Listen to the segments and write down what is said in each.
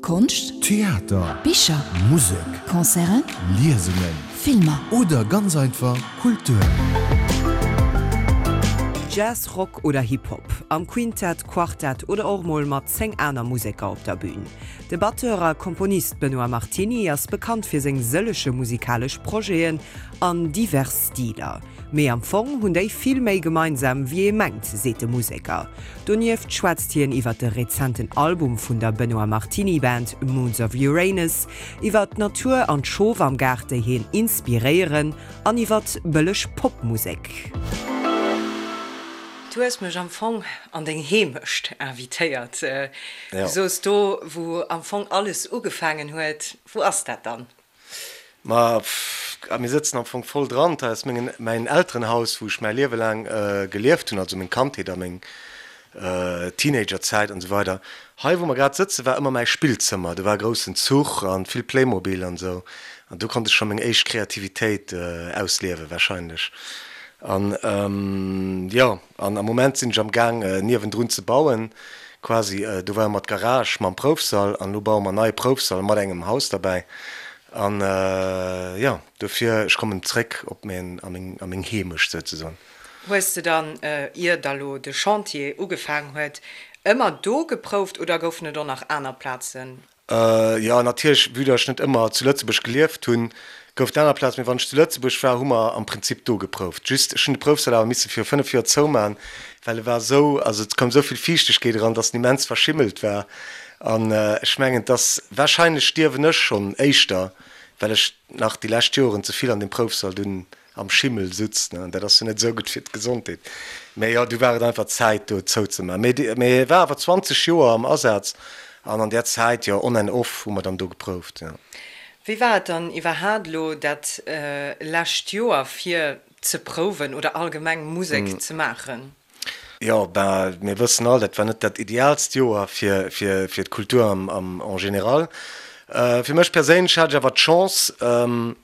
Konscht, Theater, Bicher, Musek, Concerten, Liesungen, Filmer. Oder ganz einfach Kultur. Jazz, Rock oder Hip-Hop, am Quintett, Quartett oder och mol mat 10 aner Museker op der Bün. De Batteur a Komponist Benoît Martiny ass bekannt fir seng sëllege musikalesch Projeten an divers Stiler. Mee am Fong hunn déi vill méi gemeinsam wéi ee mengt, seet de Museker. Donieft schwätzt hien iwwer de rezenten Album vun der Benoît Martiny Band Moons of Uranus, iwwer d'Natur an d'Schof am Gaart déi hien inspiréieren an iwwer bëlleg Popmusek. Du hues mech am Fong an deng Heemecht invitéiert. Du soos do wou am Fong alles ugefaangen huet. Wou ass dat dann? Ma mir sëtzen am Fong voll dran. Dat ass mengen, mäin Elterenhaus, wou ech mäi Liewe laang gelieft hunn, also meng Kandheet a meng Teenagerzäit an esou weider. Hei, wou mer grad sëtzen, war ëmmer mäi Spillzëmmer. Do war e groussen Zuch an vill Playmobil an esou. An do konnt ech scho meng éischt Kreativitéit ausliewen, warscheinlech. An jo, an am Moment sinn ech am Gaang, niewendrun ze bauen, quasi. Do war ëmmer d'Garage mam Proufsall an elo baue mer en neie Proufsall mat engem Haus derbäi. An jo, dofir, ech kommen zréck op meng, a meng, a meng Heemecht souzesoen. Hues de dann, ier da lo de Chantier ugefaang huet, ëmmer do geprouft oder goufen et och nach aner Plazen? Jo, natierlech, vue datt ech net ëmmer zu Lëtzebuerg gelieft hunn, gouf et aner Plazen. Mee wann ech zu Lëtzebuerg war, hu mer am Prinzip do geprouft. Just, ech hunn de Proufsall awer misse viru 5 Joer zoumachen, well e war esou, also et koum esou vill Fiichtegkeet eran, datt en immens verschimmelt war. An ech mengen, et ass, warscheinlech stierwen ech schonn éischter, well ech nach déi lescht Joren ze vill an deem Proufsall dunn am Schimmel sutz, ne, an dat ass jo net esou gutt fir d'Gesondheet. Mä jo, du war et einfach Zäit do zouzemaachen. Mee, mee e war awer 20 Joer am Asaz an an där Zäit, jo, on and off hu mer dann do geprouft, jo. Wéi war et dann iwwerhaat elo dat lescht Joer fir ze prouwen oder allgemeng Musek ze maachen? Jo, ben, mir wëssen all, dat war net dat ideaalst Joer fir, fir, fir d'Kultur am, am, en général. Fir mech perséinlech hat ech awer d'Chance,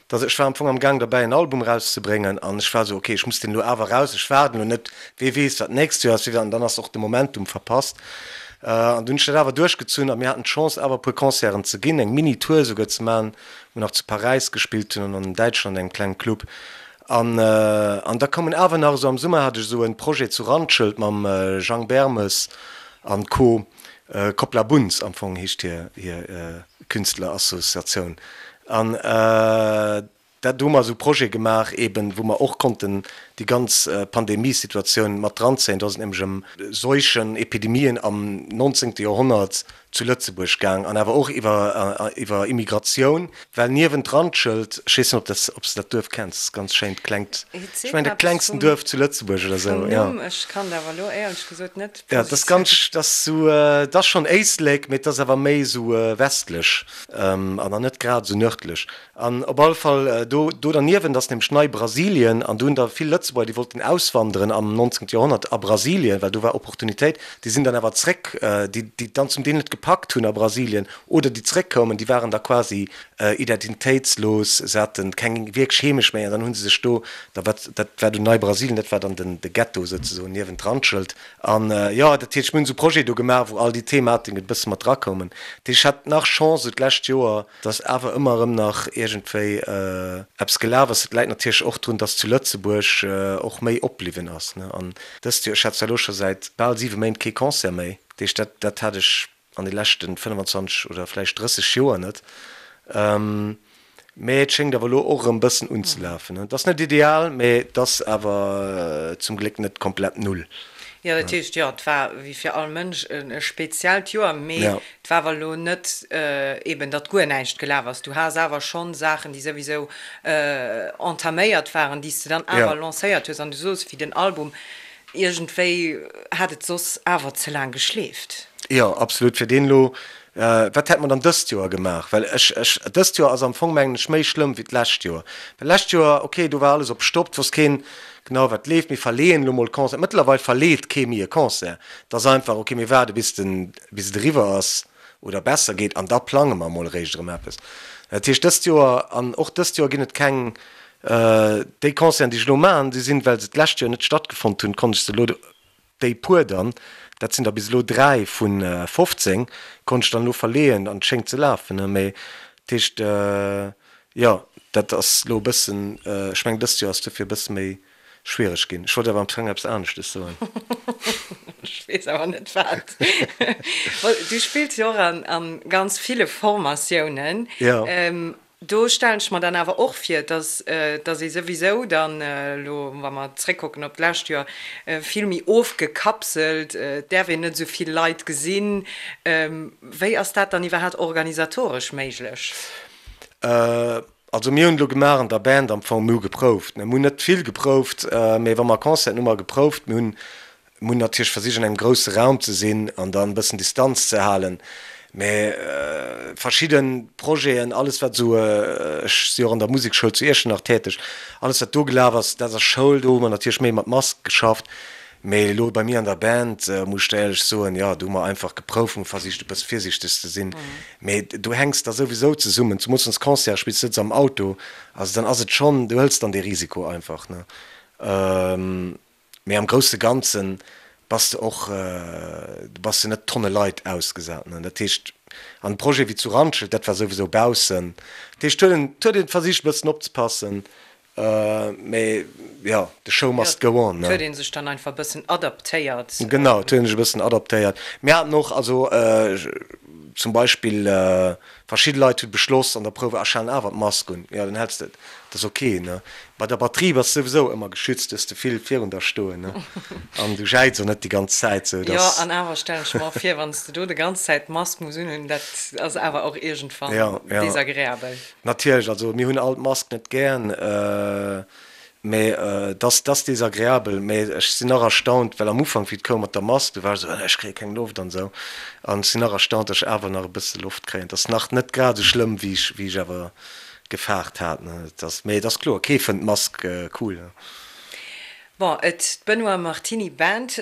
dass, ech war am Fong am Gaang derbäi en Album erauszebréngen an ech war esou, ok, ech muss deen elo awer eraus, ech waarden elo net, wee weess wat d'nächst Joer ass, wee, an dann ass och de Momentum verpasst. An dunn hunn ech dat awer duerchgezunn a mir haten d'Chance awer e puer Concerten ze ginn, eng Mini-Tour esouguer ze maachen, wou mer nach zu Paräis gespillt hunn an an Däitschland an engem klengen Club. An an da koumen awer nach esou am Summer hat ech esou en Projet zu Randschelt mam Jang Bermes an Co. Koppla Bunz am Fong heescht hir hir Künstlerassociatioun. An dat do hu mer esou Projet gemaach eben wou mer och konnten déi ganz Pandemiesituatioun mat dranzéien. Do ass et nämlech ëm Seuchen, Epidemien am 19. Joerhonnert zu Lëtzebuerg gaang an awer och iwwer iwwer Immigratioun, well niewent Randschelt, ech weess net ob dat ob s de dat Duerf kenns, ganz schéint klengt, ech mengen dat klengsten Duerf zu Lëtzebuerg oder sou, jo. Ech kann et awer elo éierlech gesot net Jo, dat ass ganz, dat ass sou, dat ass schonn Éislek, mee et ass awer méi sou westlech an dann net grad sou nërdlech. An op alle Fall do do derniewent ass nämlech Nei-Brasilien an do hunn der vill Lëtzebuerger, déi wollten auswanderen am 19. Joerhonnert a Brasilien, well do war Opportunitéit, déi sinn dann awer zréck, déi déi et dann zum Deel net gepackt hunn a Brasilien oder déi zréckkoumen, déi waren da quasi identitéitslos, se hate keng wierklech Heemecht méi an dann hu se sech do, da wat dat war dunn Nei-Brasilien, dat war dann den de Ghetto souzesoen niewent Randschelt. An jo, dat heescht, mir hunn esou Projete do gemaach, wou all déi Thematiken e bësse mat drakoumen. Dat heescht, ech hat nach Chance esou d'lescht Joer, dass awer ëmmer erëm nach iergendwéi eppes gelaf ass. Dat läit natierlech och drun, dass zu Lëtzebuerg och méi opbliwwen ass. An dëst Joer, ech hat zwar elo scho säit bal siwe Méint kee Concert méi, dat heescht, dat, dat hat ech an de leschte 25 oder vläicht 30 Joer net. Mä et schéngt awer elo och erëm e bëssen unzelafen. Et ass net ideal, mä et ass awer zum Gléck net komplett null. Jo, dat heescht, jo, et war wéi fir all Mënsch e speziellt Joer, mee et war awer elo net eeben, datt guer näischt gelaf ass. Du has awer schonn Saachen, déi souwisou entaméiert waren, déi s de dann awer lancéiert hues. An du soos, wéi den Album, iergendwéi hat et soss awer ze laang geschleeft. Jo, absolut. Fir deen elo, wat hätt mer dann dëst Joer gemaach? Well ech, ech, dëst Joer ass am Fong, mengen ech, méi schlëmm wéi d'lescht Joer. Well d'lescht Joer, okay, do war alles op Stopp, et wosst keen genau, wat leeft. Mir verleeën elo mol Concert. Mëttlerweil verleet kee méi e Concert. Et ass einfach, okay, mir waarde bis den, bis et eriwwer ass oder besser geet an da plange mer mol eréischt erëm eppes. Dat heescht, dëst Joer, an och dëst Joer ginn et keng, déi Concerten, déi ech elo maachen, déi sinn, well se d'lescht Joer net stattgefonnt hunn, konnt ech se elo. déi puer dann, dat sinn der bis elo 3 vu 15, konnt ech dann elo verleeën an et schéngt ze lafen, ne. Mee dat heescht, jo, dat ass elo e bëssen, ech mengen dëst Joer ass dofir e bësse méi schwiereg ginn. Ech wollt awer am Fong eppes aneschtes soen. Ech weess awer net wat. Du spills jo och an ganz ville Formatiounen. Jo. Do stellen ech mer dann awer och vir, dass dass ee souwisou dann elo, wa mer zréckkucken op d'lescht Joer, vill méi ofgekapselt, et däerf een net esou vill Leit gesinn. Wéi ass dat dann iwwerhaapt organisatoresch méiglech? Also mir hunn elo gemaach an der Band am Fong, mir hu geprouft. Mir hunn net vill geprouft, mee wa mer Concerten hu mer geprouft. Mir hunn mir hunn natierlech versicht an engem grousse Raum ze sinn an dann e bëssen Distanz ze halen. Mee verschidde Projeten, alles wat esou, ech si och an der Musekschoul zu Iechternach täteg, alles wat do gelaf ass, dat ass Schoul, do hu mer natierlech méi mat Mask geschafft. Mee elo bei mir an der Band, muss ech der éierlech soen, jo, do hu mer einfach geprouft, hu versicht e bësse virsiichteg ze sinn. Mee do hänks da souwisou zesummen, zumools wann s Concerte spills, sëtz am Auto, also dann ass et schonn, du hëls dann dee Risiko einfach, ne. Mee am grousse Ganze bass de och, du bass jo net Tonne Leit ausgesat, ne. Dat heescht, an e Projet wéi zu Randschelt, dat war souwisou baussen, dat heescht, huet een, huet een versicht e bëssen opzepassen, Mee jo, the show must go on, ne? Et huet ee sech dann einfach e bëssen adaptéiert. Genau, et huet ee sech e bëssen adaptéiert. Mir haten och, also zum Beispill verschidde Leit hu beschloss an der Prouf, ah, ech halen awer d'Mask un. Jo, dann häls de et, dat ass ok, ne? Bei der Batterie bass de souwisou ëmmer geschützt, du hues de vill virun der stoen, ne? An du jäiz och net déi ganz Zäit, sou dass. Jo, an awer stellen ech mer och vir, wann s de do de ganz Zäit d'Mask muss unhunn, dat ass awer och iergendwann desagreabel. Natierlech, also mir hunn all d'Mask net gären, mä et ass, et ass desagreabel. Mä ech sinn nach erstaunt, well am Ufank, wéi et koum mat der Mask, du war ech esou, ech kréie keng Loft an esou. An ech sinn nach erstaunt, datt ech awer nach e bësse Loft kréien. Et ass nach net grad esou schlëmm, wéi ech, wéi ech awer gefaart hat. Et ass, mä et ass kloer, kee fënnt d'Mask cool. Bon, et, d'Benoît Martiny Band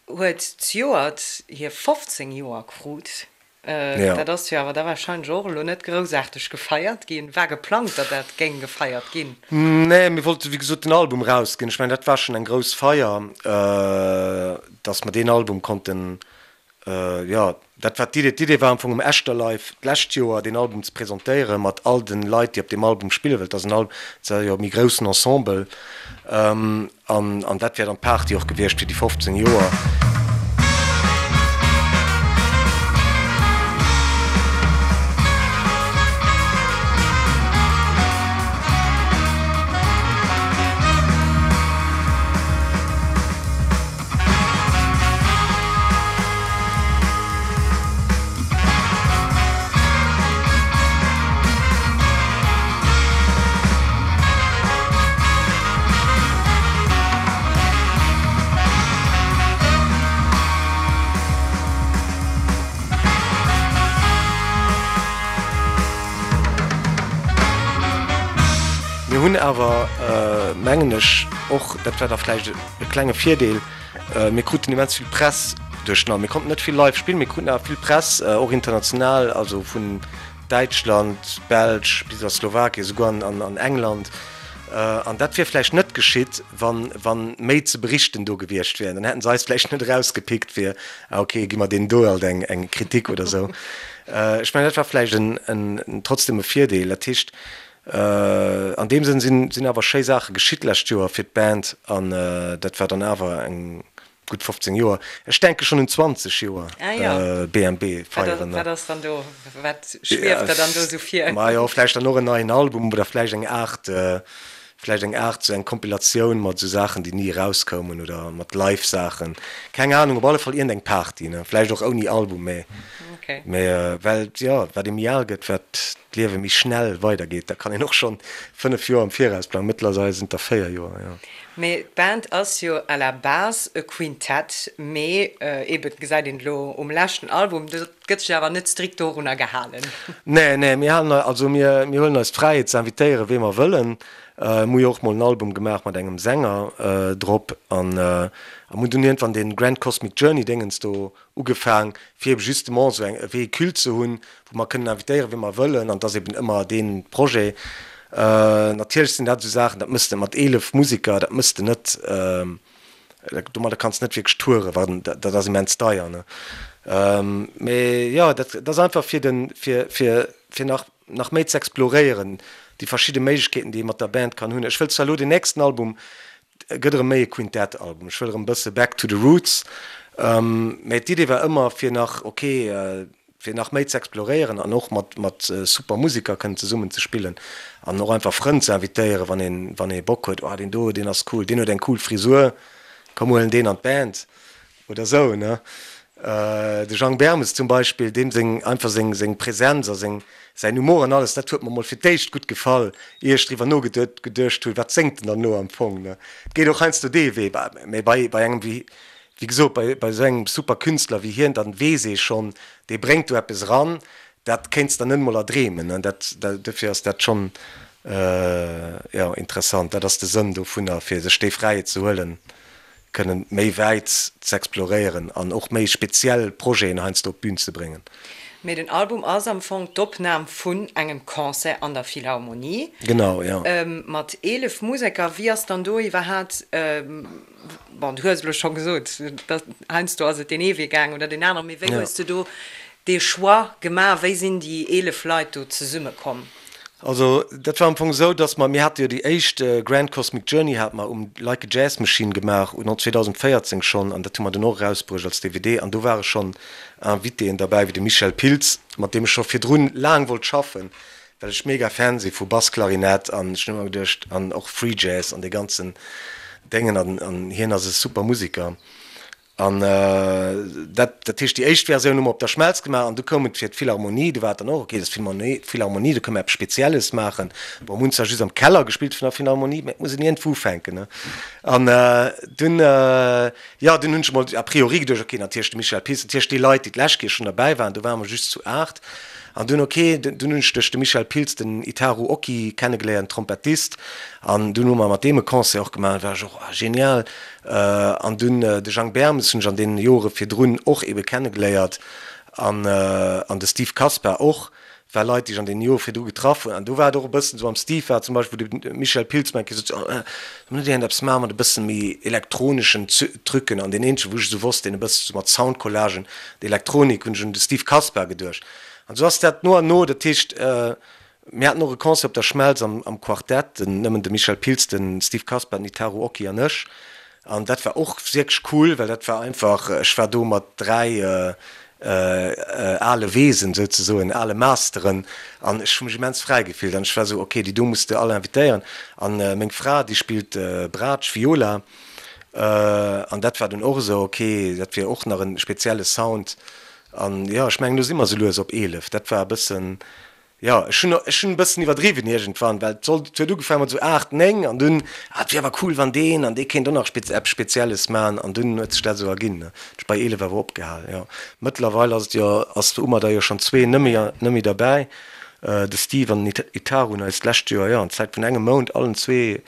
huet zejoert hir 15 Joer krut. Dat ass jo awer da warscheinlech och elo net groussaarteg gefeiert ginn. War geplangt, datt dat géing gefeiert ginn? Nee, mir wollte wéi gesot den Album erausginn. Ech mengen, dat war schonn eng grouss Feier, datt mer deen Album konnten, jo, dat war d'Idee. D'Idee war am Fong um Echterlive d'lescht Joer deen Album ze presentéieren, mat all de Leit, déi op deem Album spillen, well et ass en Album, et ass jo e méi groussen Ensemble. An an dat wär dann d'Party och gewiescht fir déi 15 Joer. Mir hunn awer, mengen ech, och, dat war da vläicht e klenge Virdeel, mir kruten immens vill Press duerch den Album. Mir konnten net vill live spillen, mir kruten awer vill Press, och international, also vun Däitschland, Belsch bis a Slowakien, esouguer an England. An dat wier vläicht net geschitt, wa méi ze berichten do gewiescht wier. Dann hätten se eis vläicht net erausgepickt fir, ah ok, gi mer deenen do alt eng Kritik oder esou. Ech mengen, dat war vläicht trotzdem e Virdeel. Dat heescht, an deem Sënn sinn awer schéi Saache geschitt d'lescht Joer fir d'Band an dat war dann awer eng Gutt 15 Joer. Ech denke schonn un 20 Joer BMB feieren. Wat ass dann do, wat schwieft der dann do esou vir? Majo, vläicht dann och en neien Album oder vläicht eng Aart, vläicht eng Aart sou eng Kompilatioun mat esou Saachen, déi ni erauskoumen oder mat Live-Saachen. Keng Anung, op alle Fall iergendeng Party, ne? Vläicht och ouni Album, mä, mä well, jo, wat ee méi al gëtt, wat d'Liewe méi schnell weidergeet, da kann een och schonn 5 Joer am Viraus plangen. Mëttlerweil sinn et der 4 Joer, jo. Mee d'Band ass jo à la base e Quintett, mee eben, gesäit een elo um leschten Album, dat gëtt sech awer net strikt dorunner gehalen. Nee, nee, mir halen eis, also mir, mir huelen eis d'Fräiheet ze invitéieren, wee mer wëllen. Mir hu jo och mol en Album gemaach mat engem Sänger drop an a mir hunn dunn iergendwann dee Grand Cosmic Journey Déngens do ugefaang, fir eben justement esou eng, e Véhicule ze hunn, wou mer kënnen invitéieren, wee mer wëllen, an et ass eben ëmmer dee Projet. Natierlech sinn dat esou Saachen, dat mëss de mat 11 Musiker, dat mëss de net. Domadder kanns de net wierklech touren, well dat ass immens deier, ne. Mee jo, dat ass einfach fir den, fir, fir, fir nach, nach méi ze exploréieren, déi verschidde Méiglechkeeten, déi ee mat der Band kann hunn. Ech wëll zwar elo den nächsten Album gëtt erëm méi e Quintett-Album, ech wëll erëm e bësse back to the roots, mee d'Idee war ëmmer fir nach, ok, fir nach méi ze exploréieren an och mat mat super Musiker kënnen zesummen ze spillen an och einfach Frënn ze invitéieren, wann een wann ee Bock huet, oh deen do, deen ass cool, deen huet eng cool Frisur, komm huelen deen an d'Band oder sou, ne. De Jang Bermes zum Beispill, deem seng einfach seng seng Präsenz a seng säin Humor an alles, dat huet mer mol fir d'éischt gutt gefall, ier ech driwwer nogeduecht hunn, wat séngt en dann elo am Fong, ne. Et geet och heiansdo dee Wee, mä bei bei engem wéi Wéi gesot, bei bei esou engem super Künstler wéi hien, dann weess ee schonn, dee bréngt do eppes eran, dat kéints der net emol erdreemen. An dat, dofir ass dat schonn, jo, interessant. Dat ass de Sënn dovunner, fir sech déi Fräiheet ze huelen, kënnen méi wäit ze exploréieren an och méi speziell Projeten heiansdo op d'Bün ze bréngen. Mee den Album ass am Fong d'Opnam vun engem Concert an der Philharmonie. Genau, jo. Mat 11 Museker. Wéi ass dann do iwwerhaat Bon, du hues elo scho gesot, datt heiansdo ass et deen ee Wee gaang oder deen aneren, mee wéi hues de do dee Choix gemaach? Wéi sinn déi 11 Leit do zesummekomm? Also dat war am Fong esou, datt mer, mir hate jo déi éischt Grand Cosmic Journey hate mer um Like a Jazz Machine gemaach, un 2014 schonn, an dat hu mer dunn och erausbruecht als DVD, an do ware schonn Invitéen derbäi wéi de Michel Pilz, mat deem ech scho virdrun laang wollt schaffen, Well ech mega Fan si vu Bassklarinett an ech hunn ëmmer geduecht, an och Free Jazz an dee ganzen Déngen an an hien ass e super Musiker an dat dat heescht déi éischt Versioun hu mer op der Schmelz gemaach an du koum et fir d'Philharmonie, du war et dann och ok, dat ass d'Philharmonie, d'Philharmonie, do kënne mer eppes Spezielles maachen. Bon, mir hunn zwar just am Keller gespillt vun der Philharmonie, mä et muss een iergendwou ufänken ne an dunn jo dunn hunn ech emol a priori geduecht, ok natierlech de Michel Pilz, natierlech déi Leit déi d'lescht Kéier schonn derbäi waren, do ware mer just zu 8 An dunn, ok, dunn hunn ech duerch de Michel Pilz den Itaru Oki kennegeléiert, en Trompettist, an dunn hu mer mat deem e Concert och gemaach, dat war ech och, ah genial. An dunn de Jang Bermes hunn ech an deene Jore virdrun och ebe kennegeléiert an an de Steve Kaspar och, war Leit, déi ech an deene Jore virdru getraff hunn. An do war et och e bëssen esou, mam Steve war et zum Beispill, wou de Michel Pilz mer eng Kéier sot, oh, solle mer net iergendeppes maache mat e bësse méi elektroneschen Trucken? An deen eenzege wou ech esou wosst, deen e bësse sou mat Soundcollagen, Elektronik, hunn ech un de Steve Kaspar geduecht. An esou ass dat no an no, dat heescht, mir haten och e Concert op der Schmelz am am Quartett, den, nëmmen de Michel Pilz, de Steve Kaspar, den Itaru Oki an ech. An dat war och wierklech cool, well dat war einfach, ech war do mat 3 ale Weesen souzesoen, ale Masteren, an ech hu mech immens fräi gefillt. An ech war esou, ok, déi do muss de all invitéieren. An meng Fra, déi spillt Braatsch, Viola, an dat war dunn och esou, ok, dat wier och nach e spezielle Sound. An jo, ech mengen, elo si mer esou lues op 11. Dat war e bëssen, jo, ech hunn, ech hunn e bëssen iwwerdriwwen iergendwann, well et sollt, et huet ugefaangen mat esou 8, 9 an dunn, ah, et wier awer cool, wann deen an dee kéint och nach spez, eppes Spezielles maachen an dunn huet sech dat esou erginn, ne. Ech bei 11 awer opgehal, jo. Mëttlerweil ass et jo, ass, hu mer der jo schonn zwee net méi, net méi derbäi, de Steve an den Itaru hunn eis d'lescht Joer, jo, an Zäit vun engem Mount allen zwee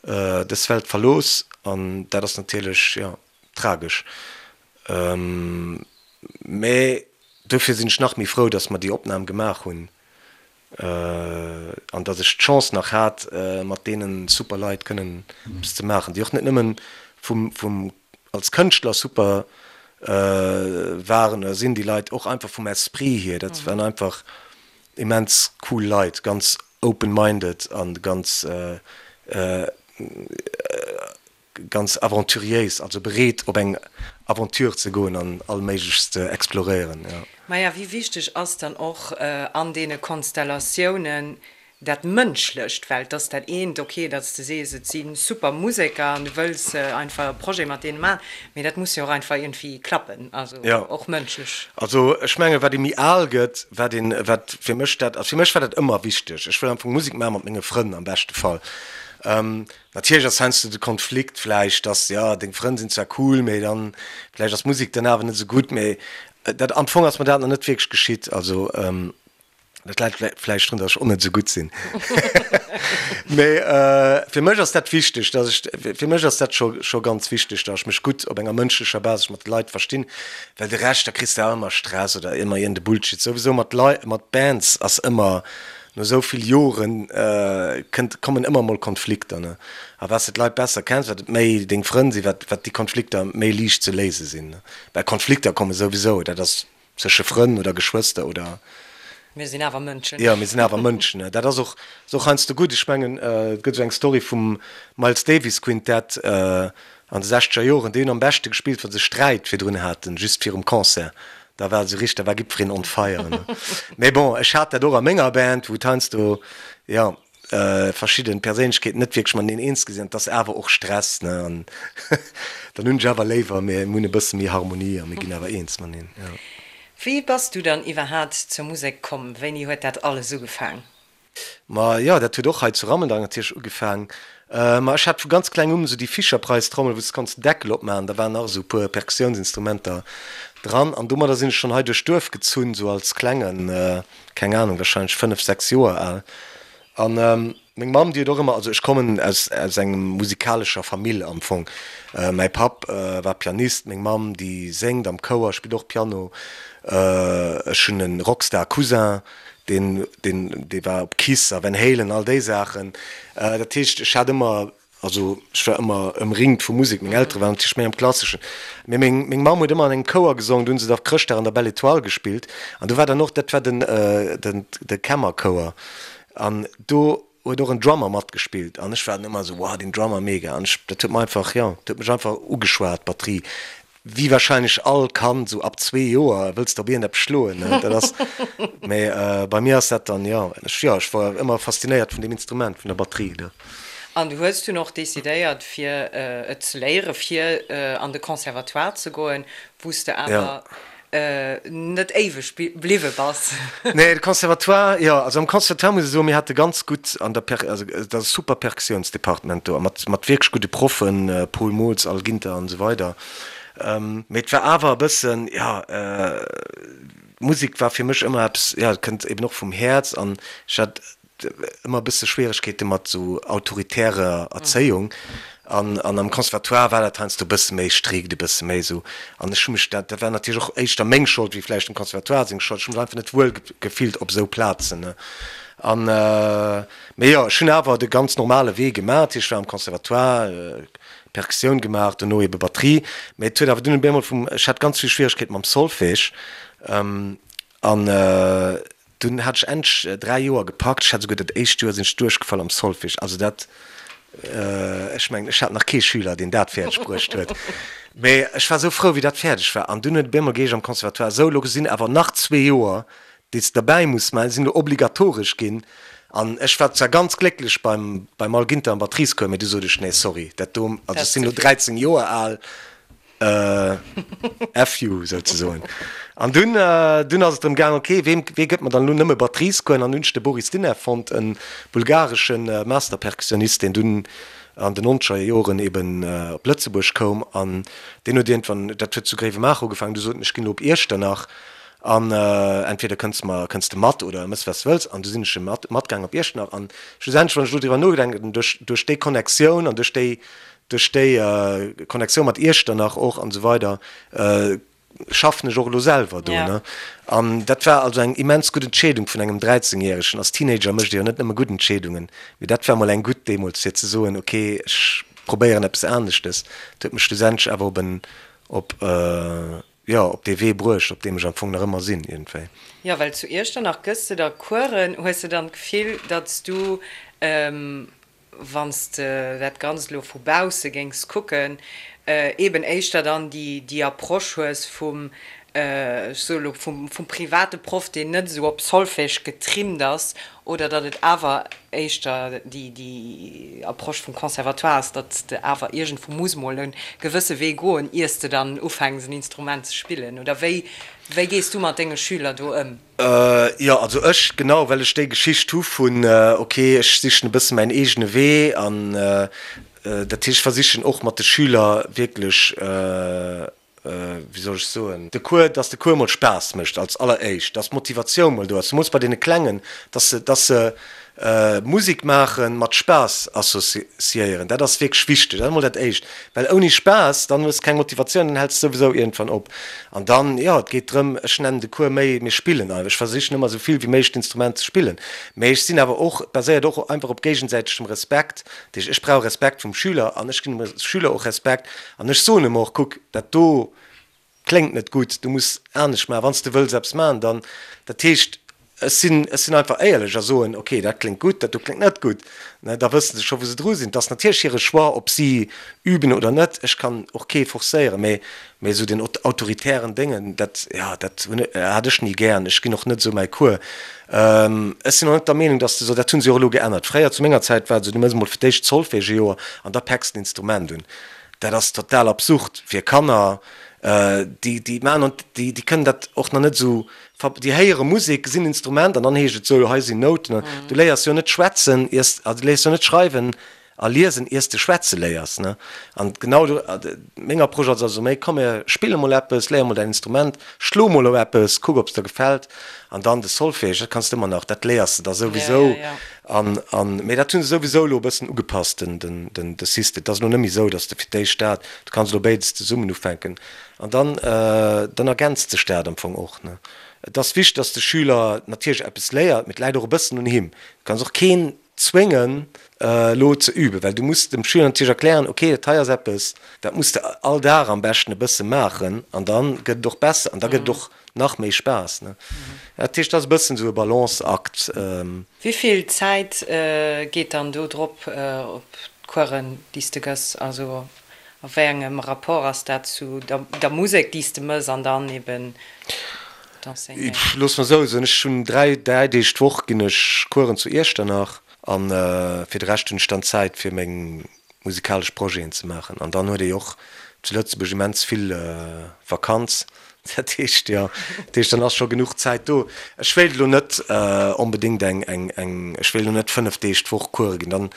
dës Welt verlooss an dat ass natierlech, jo, tragesch. Mä dofir sinn ech nach méi frou, datt mer déi Opnam gemaach hunn an datt ech d'Chance nach hat, mat deene super Leit kënnen eppes ze maachen, déi och net nëmmen vum, vum, als Kënschtler super waren oder sinn, déi Leit och einfach vum Esprit hier, dat waren einfach immens cool Leit, ganz open-minded a ganz, Ganz aventuriéis, also bereet op eng Aventure ze goen an all Méiglechst ze exploréieren, jo. Maja, wéi wichteg ass dann och an deene Konstellatiounen dat Mënschlecht? Well et ass dat eent, ok, datt s de sees, et si super Museker an du wëlls einfach e Projet mat deene maachen, mee dat muss jo och einfach iergendwéi klappen, also och mënschlech. Also ech mengen, wat ee méi al gëtt, wat een, wat fir mech dat, also fir mech war dat ëmmer wichteg, ech wëll am Fong Musek maache mat menge Frënn am beschte Fall. Natierlech ass heiansdo de Konflikt vläicht, dass, jo, deng Frënn sinn zwar cool, mee dann vläicht ass d'Musek dann awer net esou gutt. Mee dat, am Fong ass mer dat nach net wierklech geschitt. Also dat läit vläicht drun, dass ech och net esou gutt sinn. Mee fir mech ass dat wichteg, dass ech, fir mech ass dat scho scho ganz wichteg, dass ech mech gutt op enger mënschlecher Basis mat de Leit verstinn, well de Rescht, da kriss de awer ëmmer Stress oder ëmmer iergende Bullshit. Souwisou mat Lei, mat Bands ass ëmmer. No esou vill Joren kënnt, kommen ëmmer mol Konflikter, ne. A wat s de d'Leit besser kenns, wat et méi deng Frënn sinn, wat, wat déi Konflikter méi liicht ze léise sinn, ne. Well Konflikter komme souwisou, dat ass zwësche Frënn oder Geschwëster oder. Mir sinn awer Mënschen. Jo, mir sinn awer Mënschen, ne. Dat ass och, ass och heiansdo gutt. Ech mengen, et gëtt esou eng Story vum Miles Davis Quintett an de sechzeger Joren, déi hunn am beschte gespillt, wa se Sträit virdrun haten, just virum Concert. Da war esou richteg, da war jiddwereen on fire, ne. Mee bon, ech hat dat och a menger Band, wou et heiansdo, jo, verschidden Perséinlechkeeten net wierklech mateneen eens gi sinn, an et ass awer och Stress, ne, an dann hunn ech awer léiwer, mir hunn e bësse méi Harmonie a mir ginn awer eens mateneen, jo. Wéi bass du dann iwwerhaat zur Musek komm? Wéini huet dat alles ugefaang? Ma jo, dat huet och hei zu Rammeldang natierlech ugefaang. Ma ech hat vu ganz kleng un esou déi Fisher-Price-Trommel, wou s de konns den Deckel opmaachen, da waren nach esou e puer Perkussiounsinstrumenter dran an domadder sinn ech schonn hei duerch d'Duerf gezunn, esou als Klengen, keng Anung, warscheinlech 5, 6 Joer al. An meng Mamm, déi huet och ëmmer, also ech kommen aus aus engem musikalescher Famill am Fong. Mäi Papp war Pianist, meng Mamm, déi séngt am Chouer, spillt och Piano. Ech hunn e Rockstar-Cousin, Deen, deen, dee war op Kiss a Van Halen, all déi Saachen. Dat heescht, ech hat ëmmer, also ech war ëmmer ëmringt vu Musek. Meng Eltere waren natierlech méi am Klasseschen. Mee meng, meng Mamm huet ëmmer an engem Chouer gesongen, do hunn se da Chrëschtdag an der Belle Étoile gespillt. An do war dann och, dat war den, den, de Kämmerchouer. An do huet och en Drummer matgespillt. An ech war dann ëmmer esou, wow, deen Drummer, mega. An ech, dat huet mer einfach, jo, dat huet mech einfach ugeschwat, d'Batterie. Wéi wahrscheinlech all Kand, sou ab zwee Joer wëlls de op iergendeppes schloen, ne? Dat ass, mee bei mir ass dat dann, jo, ech, jo, ech war ëmmer faszinéiert vun deem Instrument, vun der Batterie, ne? An du hues dunn och decidéiert, fir et ze léieren, fir an de Conservatoire ze goen, wou s de awer net éiweg bliwwe bass. Nee, de Conservatoire, jo, also am Conservatoire muss ech soen, mir hate ganz gutt an der Per, also et ass e super Perkussiounsdepartement do a mat, mat wierklech gudde Proffen, Paul Mols, Al Ginter an esou weider. Mee et war awer e bëssen, jo, Musek war fir mech ëmmer eppes, jo, et kënnt eben och vum Häerz an ech hat ëmmer e bësse Schwieregkeete mat esou autoritärer Erzéiung an an am Conservatoire war dat heiansdo e bësse méi strikt, e bësse méi esou an ech hu mech, dat dat war natierlech och éischter meng Schold wéi vläicht dem Conservatoire seng Schold, ech hu mech einfach net wuel gefillt op esou Plazen, ne. An mee jo, ech hunn awer de ganz normale Wee gemaach, dat heescht ech war am Conservatoire, Perkussioun gemaach, dono ebe Batterie, mee et huet awer dunn op eemol vum, ech hat ganz vill Schwieregkeete mam Solfège an Dunn hat ech endlech 3 Joer gepackt. Ech hat esouguer dat éischt Joer sinn ech duerchgefall am Solfège. Also dat, ech mengen, ech hat nach kee Schüler, deen dat fäerdeg bruecht huet. Mee ech war esou frou, wéi dat fäerdeg war. An dunn huet et op eemol geheescht am Conservatoire, Sou, elo sinn awer nach zwee Joer, déi s de derbäi muss maachen, déi sinn elo obligatoresch ginn. An ech war zwar ganz glécklech beim, beim Al Ginter am Batteriescours, mee du sot ech, Nee, sorry, dat do, also ech sinn elo 13 Joer al, F you souzesoen. An dunn, dunn ass et drëm gaang, ok, weem, wee gëtt mer dann elo nëmme Batteriescoursen? An hunn ech de Boris Dinev fonnt, e bulgaresche Master-Perkussionist, deen dunn an den nonzeger Joren eben op Lëtzebuerg koum. An deen huet iergendwann, dat huet zu Gréiwemaacher ugefaangen, du sot en, ech ginn elo op Iechternach an entweder kënns mer, kënns de mat oder mëss wat s de wëlls. An du sinn ech mat, matgaang op Iechternach. An schlussendlech, wann ech elo driwwer nodenken, duerch, duerch déi Connectioun an duerch déi, Duerch déi Connectioun mat Iechternach och an esou weider schaffen ech och elo selwer do. Ne? An dat war also eng immens gutt Entscheedung vun engem 13 Järegen. Als Teenager mécht ee jo net nëmme gutt Entscheedungen, mee dat war mol eng gutt deemools fir ze soen, ok ech probéieren eppes aneschtes. Dat huet mech schlussendlech awer op en, op, jo, op dee Wee bruecht, op deem ech am Fong nach ëmmer sinn iergendwéi. Jo, well zu Iechternach gëss de da Coursen. Hues de dann d'Gefill, datt s du wann s de dat Ganzt elo vu bausse géings kucken, eeben éischter dann déi Approche hues vum, ech soe elo, vum private Proff, deen net esou op Solfège getrimmt ass, oder datt et awer éischter déi Approche vum Conservatoire ass, datt s de awer iergendwou muss mol e gewësse Wee goen, ier s de dann ufänks en Instrument ze spillen? Oder wéi gees du mat denge Schüler do ëm? Jo, also ech, genau well ech déi Geschicht hu vun, ok, ech sichen e bësse mäin eegene Wee an dat heescht, ech versichen och mat de Schüler wierklech, wéi soll ech soen, de Cours, dass de Cours mol Spaass mécht als alleréischt, dass d'Motivatioun mol do ass, zemools bei deene Klengen, dass se, dass se. Musek maachen mat Spaass associéieren. Dat ass wierklech wichteg. Dat ass emol dat Éischt. Well ouni Spaass, dann hues de keng Motivatioun, dann häls de souwisou iergendwann op. An dann, jo, et geet drëm, ech nennen de Cours méi, mir spillen einfach. Ech versichen ëmmer esou vill wéi méiglech d'Instrument ze spillen. Mee ech sinn awer och, et baséiert och einfach op géigesäitegem Respekt. Dat heescht, ech brauch Respekt vum Schüler an ech ginn dem Schüler och Respekt. An ech soen em och, kuck, dat do, Kléngt net gutt, du muss anescht maachen, wann s de wëlls eppes maachen, dann, dat heescht, ech sinn, ech sinn einfach éierlech a soen, ok, dat kléngt gutt, dat do kléngt net gutt, ne, da wësse se scho wou se dru sinn. Et ass natierlech hire Choix, ob si üben oder net, ech kann och kee forcéieren, mä, mä esou den autoritären Déngen, dat, jo, dat hunn, hat ech ni gären, ech ginn och net esou mäi Cours. Ech sinn och net der Meenung, datt s de esou, dat hu se och elo geännert, fréier zu menger Zäit war et esou, du méchs emol fir d'éischt Solfège e Joer an da päcks d'Instrument un. Dat ass total absurd fir Kanner, déi déi maachen an déi déi kënnen dat och nach net esou ver déi héiere Musek, gesinn Instrument an dann heescht et sou, hei sinn Nouten. Du léiers jo net schwätzen iers also du léiers jo net schreiwen a liesen iers de schwätze léiers ne. An genau do meng Approche ass also méi, komm mir spille mol eppes, léier mol däin Instrument, schlo mol op eppes, kuck ob s der gefält an dann de Solfège, dat kanns de ëmmer nach, dat léiers de da souwisou. An, an, mee dat hu se souwisou elo e bëssen ugepasst, den, den, den, de System. Et ass elo net méi esou, datt s de fir d'éischt dat, du kanns elo béides zesummen ufänken. An dann, dann ergänzt sech dat am Fong och, ne. Et ass wichteg, datt de Schüler natierlech eppes léiert, mee et läit och e bëssen un him. Du kanns och keen zwéngen, elo ze üben, well du muss dem Schüler natierlech erklären, okay, dat hei ass eppes, dat muss de all Dag am beschten e bësse maachen an da gëtt et och besser an da gëtt et och Nach méi Spaass, ne? Dat heescht, dat ass e bëssen esou e Balanceakt. Wéi vill Zäit geet dann do drop op d'Coursen, déi s de gëss? Also a wéi engem Rapport ass dat zu der Musek, déi s de mëss an dann eben d'Enseignéieren? Looss mer esou soen, ech hunn 3, 3 Deeg d'Woch ginn ech Coursen zu Iechternach an fir de Rescht hunn ech dann Zäit fir meng musikalesch Projeten ze maachen. An dann huet ee jo och zu Lëtzebuerg immens vill Vakanz, dat heescht, jo, dat heescht, dann ass scho genuch Zäit do. Ech wéilt elo net onbedéngt eng, eng, eng, ech wéilt elo net 5 Deeg d'Woch Coure ginn, dann,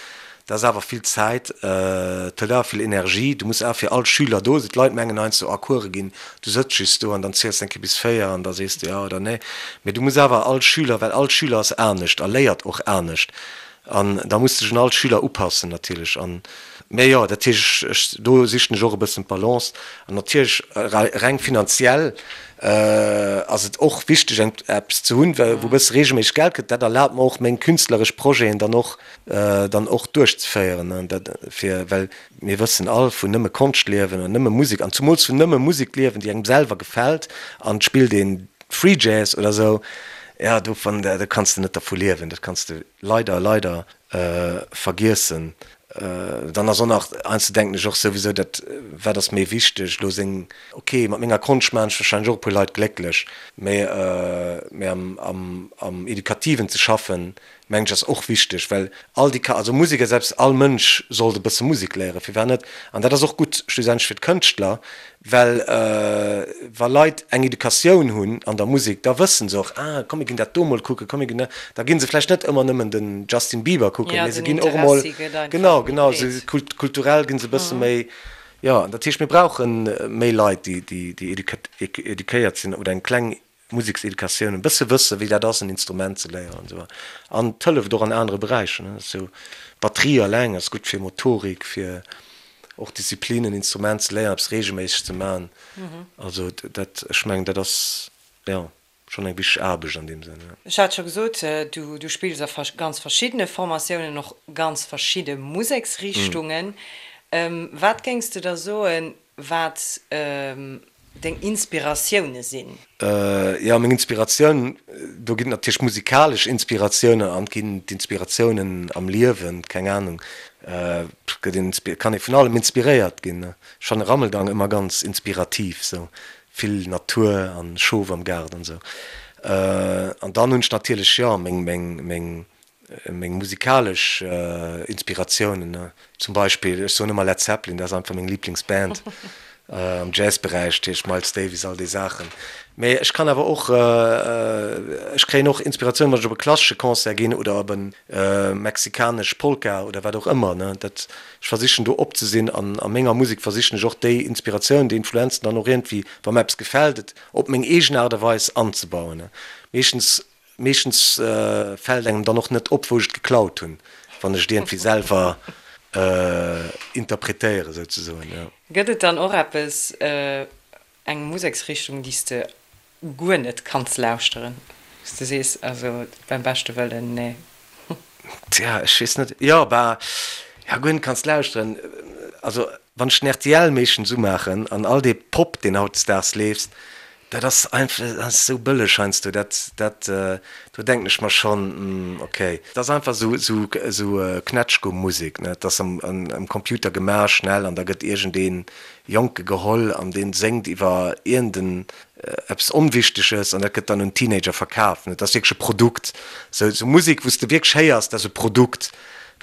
dat ass awer vill Zäit, et hëlt awer vill Energie, du muss awer fir all Schüler do sinn. D'Leit mengen heiansdo, ah, Coure ginn, du sëtz just do an dann ziels de eng Kéier bis 4 an da sees de jo oder nee. Mee du muss awer all Schüler, well all Schüler ass anescht a léiert och anescht, An da muss sech un all Schüler upassen natierlech. An, mä jo, dat heescht, ech, ech, do sichen ech och e bëssen d'Balance. An natierlech reng finanziell ass et och wichteg eng eppes ze hunn, wou e bësse reegelméisseg Geld kënnt. Dat erlaabt mer och meng künstleresch Projeten dann och, dann och duerchzeféieren. An dat fir, well mir wëssen all, vun nëmme Konscht liewen an nëmme Musek, an zumools vun nëmme Musek liewen, déi engem selwer gefält an et spillt een Free Jazz oder sou, jo, dovun, do kanns de net dervu liewen, dat kanns de leider, leider vergiessen. Dann ass och nach, heiansdo denken ech och souwisou, dat, wat ass méi wichteg elo seng, ok, mat menger Konscht maachen ech warscheinlech och e puer Leit glécklech, mä, mä am, am, am Educativen ze schaffen, mengen ech ass och wichteg, well all déi, also Musek ass eppes, all Mënsch sollt e bësse Musek léieren, firwat net? An dat ass och gutt schlussendlech fir d'Kënschtler, Well wa Leit eng Educatioun hunn an der Musek, da wëssen se och, ah komm mir ginn dat do mol kucken, komm mir ginn dat, da gi se vläicht net ëmmer nëmmen den Justin Bieber kucken, mee se ginn och emol, genau, genau, se kulturell gi se e bësse méi, jo. An dat heescht, mir brauche méi Leit, déi eduquéiert sinn oder eng kleng Musekseducatioun, e bësse wëssen, wéi dat ass, en Instrument ze léieren an esou weider. An et hëlleft och an anere Beräicher, ne. Sou Batterie alleng ass gutt fir Motorik, fir och Disziplin, en Instrument ze léieren, eppes reegelméisseg ze maachen. Also dat, ech mengen, dat ass, jo, schonn eng wichteg Aarbecht an deem Sënn, jo. Ech hat scho gesot, du, du spills a ganz verschiddene Formatiounen, och ganz verschidde Museksrichtungen. Wat géings de da soen, wat deng Inspiratioune sinn? Jo, meng Inspiratioun, do ginn et natierlech musikalesch Inspiratiounen an et ginn d'Inspiratiounen am Liewen, keng Anung, gëtt een, kann ee vun allem inspiréiert ginn. Ech fanne Rammeldang ëmmer ganz inspirativ, sou vill Natur an Schof am Gaart an esou. An dann hunn ech natierlech, jo, meng, meng, meng Meng musikalesch Inspiratiounen, zum Beispill, ech soen ëmmer Led Zeppelin, dat ass einfach meng Liblingsband am Jazzberäich, dat heescht Miles Davis, all déi Saachen. Mee ech kann awer och, ech kréien och Inspiratioun, wann ech op e klassesche Concert ginn oder op e mexikanesch Polka oder wat och ëmmer. Dat, ech versichen do op ze sinn an a menger Musek versichen ech och déi Inspiratioun, déi Influenzen dann och iergendwéi, wa mer eppes gefält, et op meng eegen Aart a Weis anzebauen. Meeschtens. Meeschtens fält engem dann och net op, wou ech et geklaut hunn, wann ech et iergendwéi selwer interpretéiere souzesoen, jo. Gëtt et dann och eppes, eng Museksrichtung, déi s de guer net kanns lauschteren, wou s de sees, also beim beschte Wëllen, nee? Tja, ech weess net, jo, bah, ja, guer net kanns lauschteren, also wann ech den rtl meeschtens umaachen an all dee Pop, deen hautdesdaags leeft, Dat ass einfach, dat ass esou bëlleg heiansdo, dat, dat, do denken ech mer schonn, hm, okay. Dat ass einfach esou, esou, esou Knätschgumm-Musek, ne. Dat ass am, am Computer gemaach, schnell, an da gëtt iergendee Jonke geholl an dee séngt iwwer iergenden eppes Onwichteges an dat gëtt dann un Teenager verkaf, ne. Dat ass wierklech e Produkt. Esou, esou Musek, wou s de wierklech héiers, dat ass e Produkt,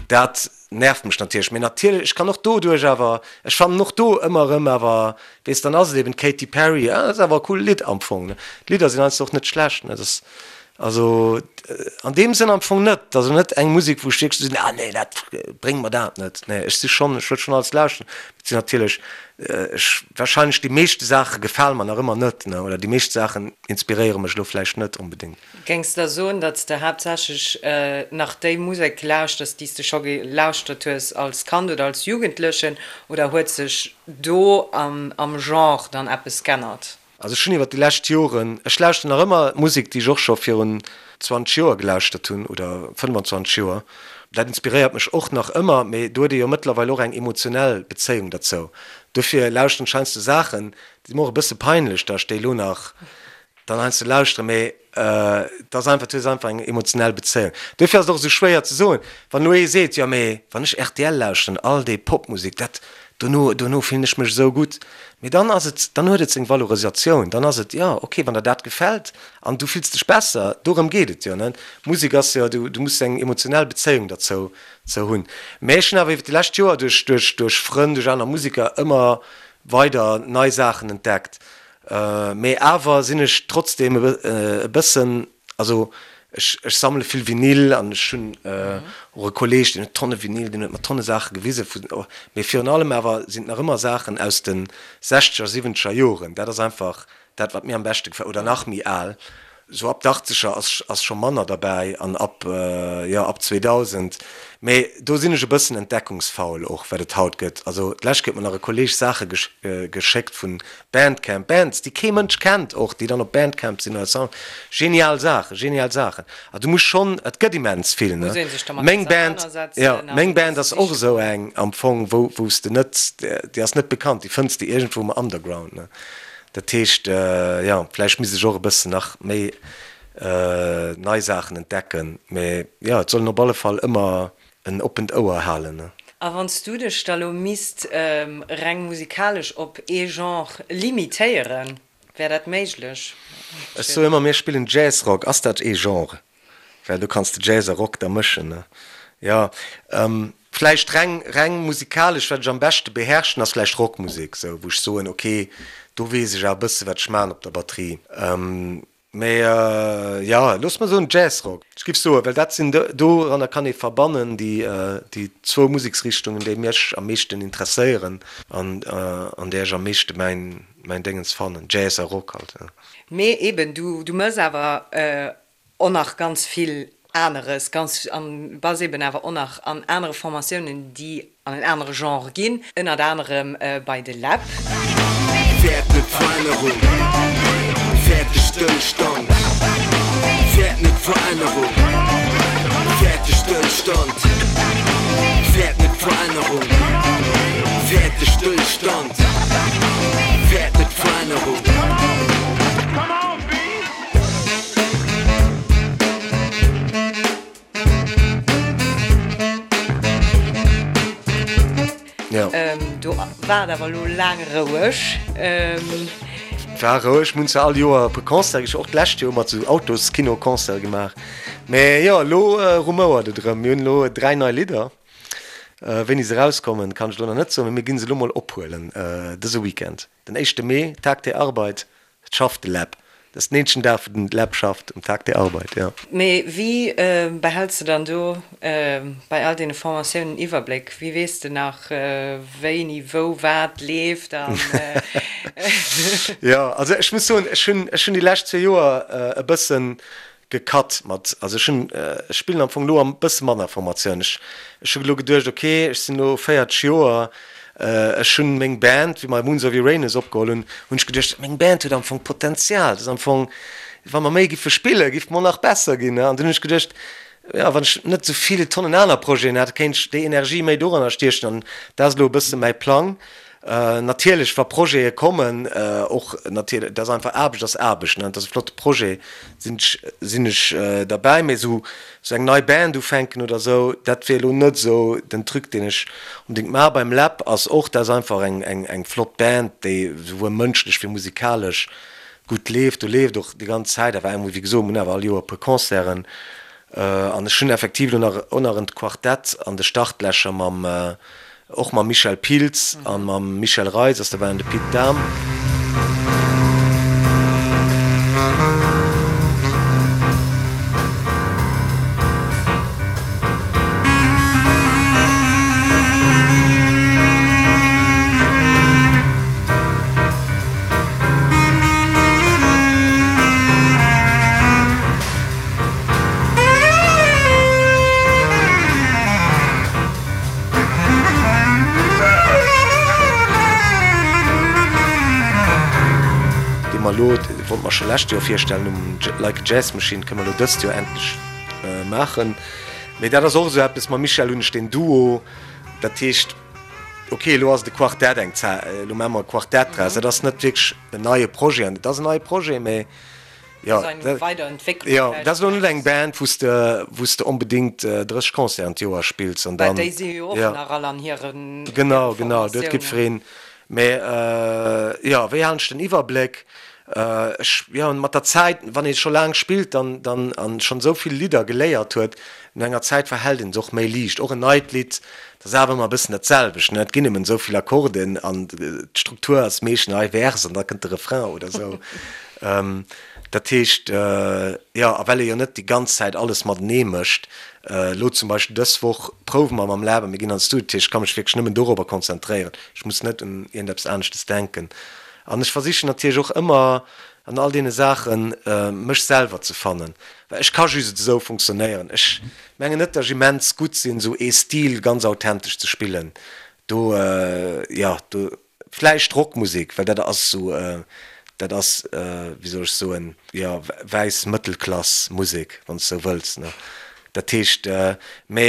dat nervt mech natierlech. Mee natierlech, ech kann och doduerch awer, ech fannen och do ëmmer erëm awer, weess, dann ass et eben d'Katy Perry, ah, dat ass awer e cool Lidd am Fong, ne. D'Lidder sinn heiansdo och net schlecht, ne. Dat ass also an deem Sënn am Fong net, dat ass elo net eng Musek, wou ech wierklech sinn, ah nee, dat, bréng mer dat net. Nee, ech si schonn, ech wëll schonn alles lauschteren. Et sinn natierlech, ech, warscheinlech déi meeschte Saache gefale mer nach ëmmer net, ne, oder déi meescht Saachen inspiréiere mech elo vläicht net onbedéngt. Géings de da soen, datt s de haaptsächlech nach déi Musek lauschters, déi s de scho gelauschtert hues als Kand oder als Jugendlechen, oder huet sech do am Genre dann eppes g'ännert? Also ech hunn iwwer déi lescht Joren, ech lauschteren nach ëmmer Musek, déi ech och scho virun 20 Joer gelauschtert hunn oder 25 Joer. Dat inspiréiert mech och nach ëmmer, mee do huet ee jo mëttlerweil och eng emotionell Bezéiung derzou. Dofir lauschteren ech heiansdo Saachen, déi si mer och e bësse peinlech, datt ech déi elo nach dann heiansdo lauschteren, mee et ass einfach, du hues einfach eng emotionell Bezéiung. Duerfir ass et och esou schwéier ze soen, wann elo ee seet, jo mee wann ech rtl lauschteren, all déi Popmusek, dat, dono, dono fillen ech mech esou gutt. Mee dann ass et, dann huet et seng Valorisatioun, dann ass et, jo okay, wann der dat gefält an du fills dech besser, dorëm geet et jo, ne? Musek ass jo, du, du muss eng emotionell Bezéiung derzou zou hunn. Mee ech hunn awer iwwer déi lescht Joer duerch, duerch, duerch Frënn, duerch aner Museker ëmmer weider nei Saachen entdeckt. Mee awer sinn ech trotzdem e bëssen, also ech ech sammele vill Vinyl an ech hunn och e Kolleeg, deen huet Tonne Vinyl, deen huet mer Tonne Saache gewise vun, mee virun allem awer sinn et nach ëmmer Saachen aus de sechzeger, siwwenzeger Joren. Dat ass einfach dat, wat mir am beschte gefält, oder nach méi al. Sou ab d'Achtzeger ass ass scho manner derbäi an ab, jo, ab 2000. Mee do sinn ech e bëssen entdeckungsfaul och, wat et haut gëtt. Also d'lescht Kéier huet mer nach e Kolleeg Saache geschéckt vun Bandcamp, Bands, déi kee Mënsch kennt och, déi dann op Bandcamp sinn oder Sound. Genial Saachen, genial Saachen. A du muss schonn, et gëtt immens vill, ne? Muss ee sech dermat Meng Band, ausernanersetzen jo, an meng Band das ass och sichen. esou eng am Fong, wou wou s de net, déi ass net bekannt, déi fënns de iergendwou um Underground, ne? Dat heescht, jo, vläicht misst ech och e bëssen nach méi nei Saachen entdecken. Mee jo, et soll een op alle Fall ëmmer en oppent Ouer halen. A wann s du dech da lo misst reng musikalesch op ee Genre limitéieren, wär dat méiglech? Ech soe ëmmer, mir spillen Jazzrock. Ass dat ee Genre? Well do kanns de Jazz a Rock da mëschen, ne? Jo, vläicht reng, reng musikalesch, wat ech am beschte beherrschen, ass vläicht Rockmusek, sou, wou ech soen, ok, do weess ech awer e bësse wat ech maachen op der Batterie. Mee jo, looss mer soen Jazzrock. Ech giff soen, well dat sinn, doranner kann ee verbannen déi, déi zwou Museksrichtungen, déi mech am meeschten interesséieren an an där ech am meeschte mäin, mäin Déngens fannen, Jazz a Rock halt, jo. Mee eben, du, du mëss awer och nach ganz vill aneres, ganz an bass eben awer och nach an anere Formatiounen, déi an en anere Genre ginn, ënnert anerem bei de Läb. Fäert net Verännerung, fäert de Stëllstand, fäert net Verännerung, fäert de Stëllstand, fäert net Verännerung, fäert de Stëllstand, fäert net Verännerung. Do war et awer elo laang roueg. War roueg, mir hunn zwar all Joer e puer Concerte gesch, och d'lescht Joer hu mer zu Autoskino Concerte gemaach. Mee jo, elo rumouert et erëm. Mir hunn elo 3 nei Lidder. Wéini se erauskommen, kann ech elo nach net soen, mee mir ginn se elo mol ophuelen dëse Weekend, den éischte Mee, Tag der Arbeit. Et schafft de Läb. Dat ass den eenzegen Dag, wou den Läb schafft, um Tag der Arbeit, jo. Mee wéi behälls de dann do bei all deene Formatiounen den Iwwerbléck? Wéi weess de nach, wéini, wou, wat leeft an. Jo, also ech muss soen, ech hunn, ech hunn déi lescht zwee Joer e bëssen. Gecut mat, also ech hunn, ech spillen am Fong elo am bësse manner Formatioun. Ech, ech hu elo geduecht, ok, ech sinn elo 40 Joer, ech hunn meng Band, wéi mer Moons of Uranus opgeholl hunn, hunn ech geduecht, meng Band huet am Fong Potenzial, dat ass am Fong, wa mer méi giffe spillen, giff mer nach besser ginn. An dunn hunn ech geduecht, jo, wann ech net esou vill Tonnen aner Projeten hätt, kéint ech déi Energie méi doranner stiechen an dat ass elo e bësse mäi Plang. Natierlech, wa Projete kommen, och natierlech, dat ass einfach, Aarbecht ass Aarbecht, ne, dat ass e flotte Projet, sinn ech, sinn ech derbäi. Mee esou, esou eng nei Band ufänken oder esou, dat wier elo net esou den Truc, deen ech onbedéngt maachen. Beim Läb ass och, dat ass einfach eng, eng, eng flott Band, déi esouwuel mënschlech wéi musikalesch gutt leeft. Do leeft och déi ganz Zäit awer eng, wéi gesot, mir hunn awer all Joer e puer Concerten. An ech hunn effektiv elo nach, och nach en Quartett an de Startlächer mam, Och mam Michel Pilz an mam Michel Reis ass derbäi an de Pit Dahm. Dee mer elo, dee wollte mer scho lescht Joer virstellen um Like a Jazz Machine, kënne mer elo dëst Joer endlech maachen. Mee dat ass och esou eppes, mam Michel hunn ech deen Duo, dat heescht, ok, elo ass et e Quartett eng Zäit, elo maache mer e Quartett draus. Dat ass net wierklech en neie Projet an et ass en neie Projet, mee Jo, jo, dat ass elo net eng Band, wou s de, wou s de onbedéngt 30 Concerten d'Joer spills an dann. Well déi si jo och nach all an hiren Genau, genau, do huet jiddwereen. Mä jo, wéi halen ech den Iwwerbléck? Ech, jo, mat der Zäit, wann ee scho laang spillt, dann, dann, an schonn esou vill Lidder geléiert huet, no enger Zäit verhält een se och méi liicht. Och en neit Lidd, dat ass awer ëmmer e bëssen dat selwecht, ne? Et ginn nëmmen esou vill Akkorden an d'Struktur ass meeschtens hei Vers an da kënnt de Refrain oder esou. Dat heescht, jo, a well ee jo net déi ganz Zäit alles matenee mécht, elo zum Beispill dës Woch prouwe mer mam Lab a mir ginn an de Studio, dat heescht, ech ka mech wierklech nëmmen dorobber konzentréieren, ech muss net un iergendeppes aneschtes denken. An ech versichen natierlech och ëmmer an all deene Saachen, mech selwer ze fannen, well ech ka just esou funktionéieren. Ech mengen net, datt ech immens gutt sinn, esou ee Stil ganz authentesch ze spillen. Do, jo, do Vläicht Rockmusek, well dat ass esou, dat ass, wéi soll ech soen, jo, wäiss Mëttelklass Musek, wann s de esou wëlls, ne. Dat heescht, mä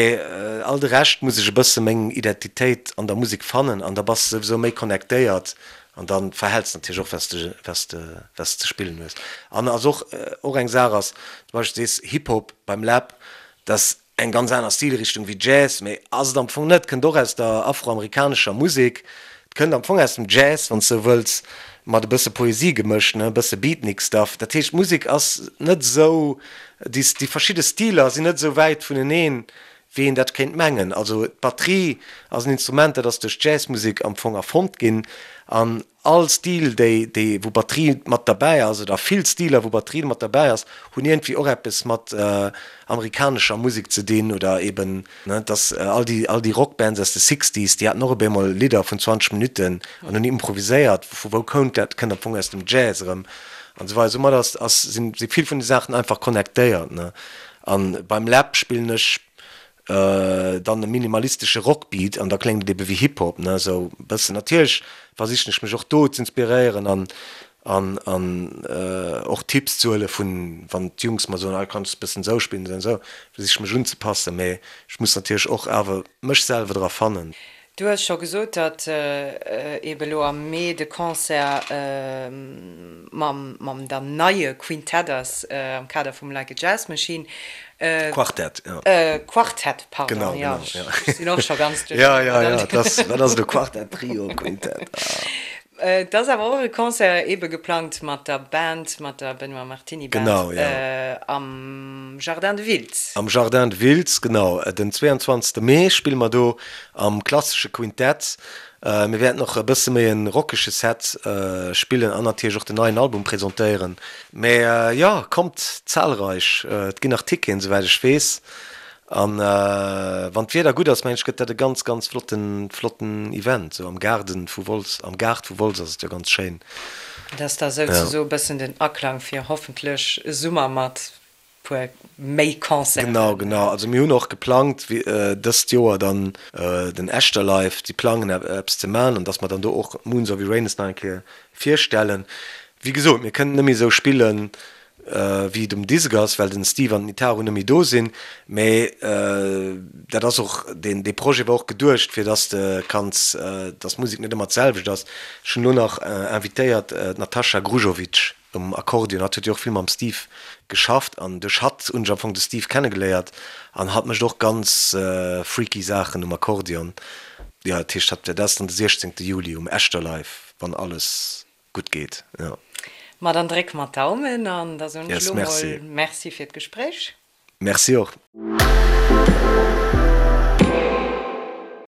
all de Rescht muss ech e bësse meng Identitéit an der Musek fannen an da bass de souwisou méi connectéiert an da verhäls de natierlech och, wat s de, wat s de, wat s de ze spillen hues. An ass och, och eng Saach ass, zum Beispill sees Hip-Hop beim Läb, dass Eng ganz aner Stilrichtung wéi Jazz, mee ass et am Fong net, kënnt och aus der afroamerikanescher Musek, et kënnt am Fong aus dem Jazz, wann s de sou wëlls, mat e bësse Poesie gemëscht, ne, e bësse Beatnik Stuff. Dat heescht, d'Musek ass net esou, déi déi verschidde Stiler sinn net esou wäit vuneneen, wéi een dat kéint mengen. Also d'Batterie ass en Instrument, dat ass duerch d'Jazzmusek am Fong erfonnt ginn an All Stil déi déi wou Batterie mat derbäi ass, oder vill Stiler wou Batterie mat derbäi ass, hunn iergendwéi och eppes mat amerikanescher Musek ze dinn oder eben, ne, dass all déi all déi Rockbands aus de Sixties, déi haten och op eemol Lidder vun 20 Minutten an hunn improviséiert. Vu wou kount dat? Kënnt am Fong aus dem Jazz erëm an esou weider. Soumat ass ass sinn si vill vun de Saachen einfach connectéiert, ne. An beim Läb spillen ech Dann e minimalistesche Rockbeat an da kléngt et ebe wéi Hip-Hop, ne, esou e bëssen. Natierlech versichen ech mech och do z'inspiréieren an an an och Tipps ze huele vun, wann d'Jungs mer soen, ah kanns de bëssen esou spillen, esou an esou, versiche ech mech unzepassen, mee ech muss natierlech och awer mech selwer dra fannen. Du hues scho gesot, datt eebe lo am Mee de Concert mam mam dann neie Quintett ass am Kader vum Like a Jazz Machine. Quartett, jo. Quartett, pardon, Genau, jo, genau, jo. ech sinn och scho ganz duercherneen. Jo, jo, jo, dat ass, wat ass elo Quartett, Trio, Quintett, ah. Et ass awer och e Concert eebe geplangt mat der Band, mat der Benoît Martini Band Genau, jo. am Jardin de Wiltz. Am Jardin de Wiltz, genau. Den 22. Mee spille mer do am klassesche Quintett. Mir wäerten och e bësse méi e rockege Set spillen an natierlech och den neien Album presentéieren. Mee jo, kommt zahlreich, et ginn nach Ticketen, souwäit ech weess. An wann d'Wieder gutt ass, mengen ech, gëtt dat e ganz, ganz flotten, flotten Event. Sou am Gaarden vu Wolz, am Gaart vu Wolz ass et jo ganz schéin. Dat ass da souzesoe bëssen den Aklang fir hoffentlech e Summer mat. Puer méi Concerten. Genau, genau. Also mir hunn och geplangt dëst Joer dann den Echterlive, déi plangen eppes ze man an dass mer dann do och Moons of Uranus nach eng Kéier virstellen. Wéi gesot, mir kënnen net méi esou spillen wéi et um Disk ass, well den Steve an den Itaru net méi do sinn, mä dat ass och, deen dee Projet war och geduecht fir dass de kanns, dass d'Musek net ëmmer d'selwecht ass. Ech hunn elo nach invitéiert d'Natasha Grujovic. Um Akkordeon. Hatt huet jo och vill mam Steve geschafft an duerch hatt hunn ech am Fong de Steve kennegeléiert an hatt mécht och ganz freaky Saachen um Akkordeon. Jo, dat heescht hatt, dat ass dann de 16 Juli um Echterlive, wann alles gutt geet, jo. Ma dann drécke mer d'Daumen an da soen ech elo mol Merci fir d'Gespréich. Merci och.